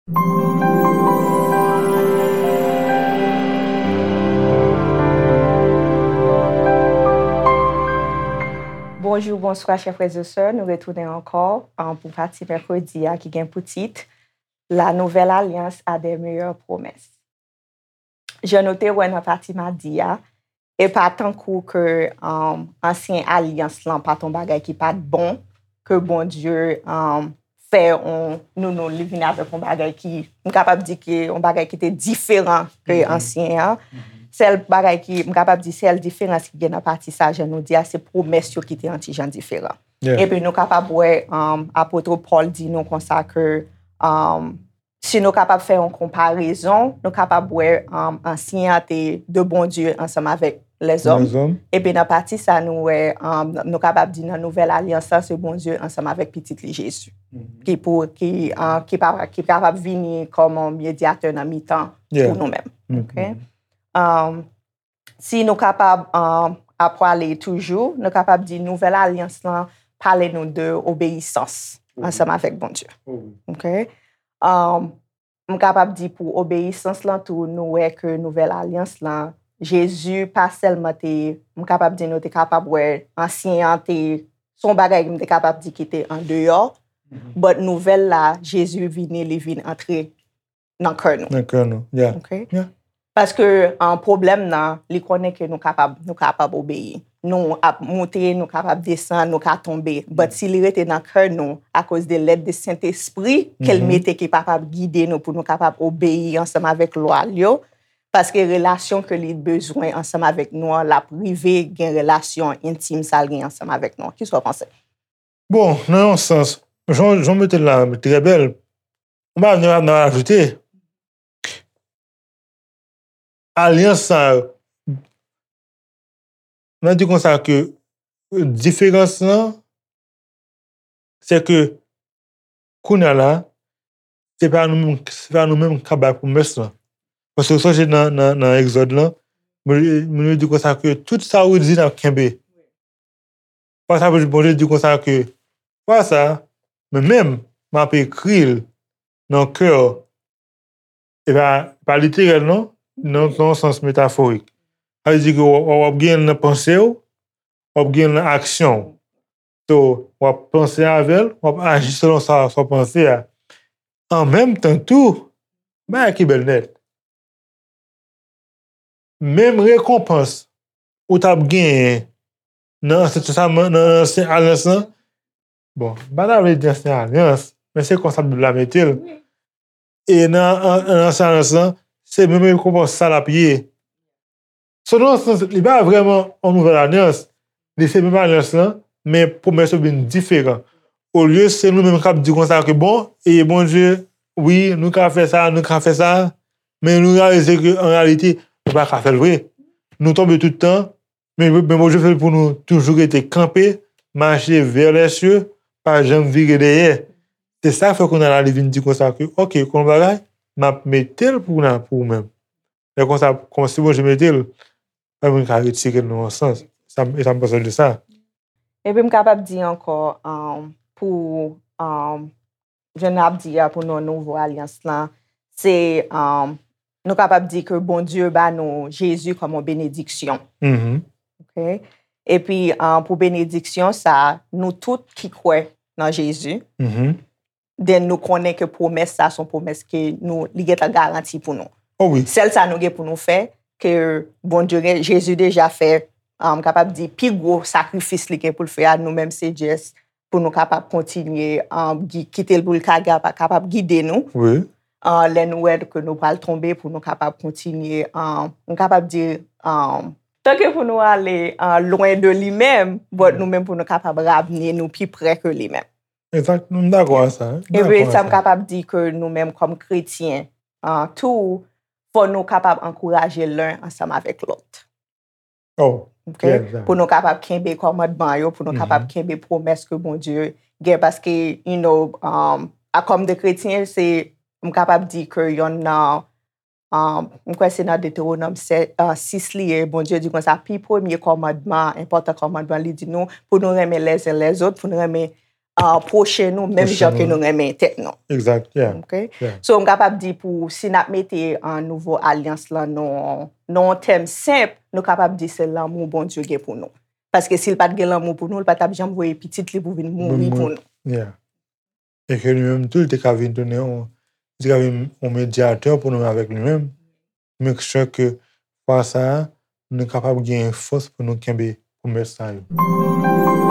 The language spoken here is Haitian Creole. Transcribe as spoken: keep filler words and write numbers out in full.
Bonjou, bonswa, chè frè e sè. Nou retounen ankò, an, pou pati mèkredi a ki gen pou tit La nouvelle alliance a des meilleures promesses. Jan nou te wè nan pati madi a, e pa tankou ke, um, ansyen alyans lan pa t on bagay ki pa t bon, ke Bondye, um, fè on, nou, nou, li vin avèk on bagay ki, m kapab di ke on bagay ki te diferan ke ansyen an. Sèl bagay ki, m kapab di, sèl diferans ki gen nan pati sa, jan nou di a, se pwomès yo ki te on ti jan diferan. Epi nou kapab wè, um, apot Pòl di nou konsa ke, um, si nou kapab fè yon konparezon, nou kapab wè, um, ansyen an te de Bondye ansanm avèk lèzòm. Epi nan pati sa, nou wè, um, nou kapab di nan nouvèl alyans la, se Bondye ansanm avèk Pitit li Jezi. Ki pou, ki, uh, ki pa, ki kapab vini kòm yon medyatè nan mitan pou nou menm. Um, si nou kapab, um, ap pwale toujou, nou kapab di nouvèl alyans lan pale nou de obeyisans ansanm avèk Bondye. Um, m kapab di pou obeyisans lan tou, nou wè ke nouvèl alyans lan, Jezi pa sèlman te, m kapab di nou te kapab wè ansyen an te, se yon bagay m te kapab di ki te andeyò, but nouvèl la, Jezi vini, li vin antre nan kè nou. Nan kè nou, yeah. Paske, an, pwoblèm nan, li konnen ke nou kapab, nou kapab obeyi. Nou ap moute, nou kapab desann, nou ka tonbe. But si li rete nan kè nou, akoz de lèd de Sentespri ke l mete ki kapab gide nou pou nou kapab obeyi ansanm avèk lwa l yo, paske relasyon ke li bezwen ansanm avèk nou an, l ap rive gen relasyon entim sa l gen ansanm avèk nou an. Kisa w panse? Bon, nan yon sans, jan, jan w mete l la, trè bèl. Mwen pa gen anyen pou m ajoute. Alyans sa yo, mwen di konsa ke diferans lan, se ke kounye a la, se pa nou menm, se pa nou menm k ap bay pwomès lan. Paske w sonje nan, nan, nan Egzòd lan, Bondye, Bondye di konsa ke tout sa ou di n ap kenbe. Fwa sa, Bondye di konsa ke, fwa sa, mwen menm, m ap ekri l nan kè w. E pa, pa literèl, non, nan, nan yon sans metaforik. Sa vle di ke w, w, w ap gen l nan panse w, w ap gen l nan aksyon w. So, w ap panse avè l, w ap aji selon sa, sa w panse a. An menm tan tou, bagay ki bèl nèt. Menm rekonpans ou t ap genyen nan Ansyen Testaman, nan Ansyen Alyans lan, bon, m pa ta vle di Ansyen Alyans, men se konsa Bib la mete l. E nan, an, nan Ansyen Alyans lan, se menm rekonpans sa l ap ye. So, nan yon sans, li pa vrèman yon nouvèl alyans. Li se menm alyans lan, men pwomès yo vin diferan. Olye se nou menm k ap di konsa ke, bon, e Bondye, wi, nou ka fè sa, nou ka fè sa, men nou reyalize ke, an reyalite, nou pa ka fè l vre. Nou tonbe tout tan, men, men Bondye fè l pou nou toujou rete kanpe, mache vè lèsye, pa janm vire dèyè. Se sa k fè kounye a la, li vin di konsa ke, oke, konn bagay, m ap mete l pou, pou ou menm. Lè konsa, kòmsi Bondye mete l, pa moun ka retire l nan yon sans. Sa, e sa m panse de sa. Epi m kapab di ankò, um, pou, um, jan n ap di a, pou nou nouvo alyans lan, se, um, nou kapab di ke Bondye ba nou Jezi kòm yon benediksyon. Oke? Epi, um, pou benediksyon sa, nou tout ki kwè nan Jezi, then nou konnen ke pwomès sa se yon pwomès ke nou, li gentan garanti pou nou. Sèl sa nou gen pou nou fè, ke Bondye gen, Jezi deja fè, um, m kapab di, pi gwo sakrifis li gen pou l fè a, nou menm se just pou nou kapab kontinye, um, gi-, kite l pou l ka, ka, kapab gide nou. Uh, lè nou wè ke nou pral tonbe, pou nou kapab kontinye, um, m kapab di, um, tanke pou nou ale, uh, lwen de li menm, but nou menm pou nou kapab ramne nou pi pre ke li menm. Egzakt, m dakò a sa. Epi sa m kapab di ke nou menm kòm kretyen, uh, tou, fò nou kapab ankouraje len ansanm avèk lòt. Oke? Pou nou kapab kenbe kòmandman yo, pou nou kapab kenbe pwomès ke Bondye gen, paske, you know, um, a kòm de kretyen, se, m kapab di ke yonn nan, um, m kwè se nan Detewonòm sè-, uh, sis li ye, Bondye di konsa, pi premye kòmandman, enpòtan kòmandman, li di nou pou nou renmen les uns les autres, pou nou renmen uh, pwochen nou, menm jan ke nou renmen tèt nou. Exact, yeah. Okay? Yeah. So, m kapab di pou, si n ap mete an nouvo alyans lan nan yon tèm senp, nou kapab di se lanmou Bondye gen pou nou. Paske si l pa t gen lanmou pou nou, l pa t ap janm voye pitit li pou vin mouri pou nou. Yeah. E ke li menm tou, li te ka vin tounen, li te ka vin yon medyatè pou nou avèk li menm. Make sure ke fwa sa a, nou kapab gen fòs pou nou kenbe pwomès sa yo.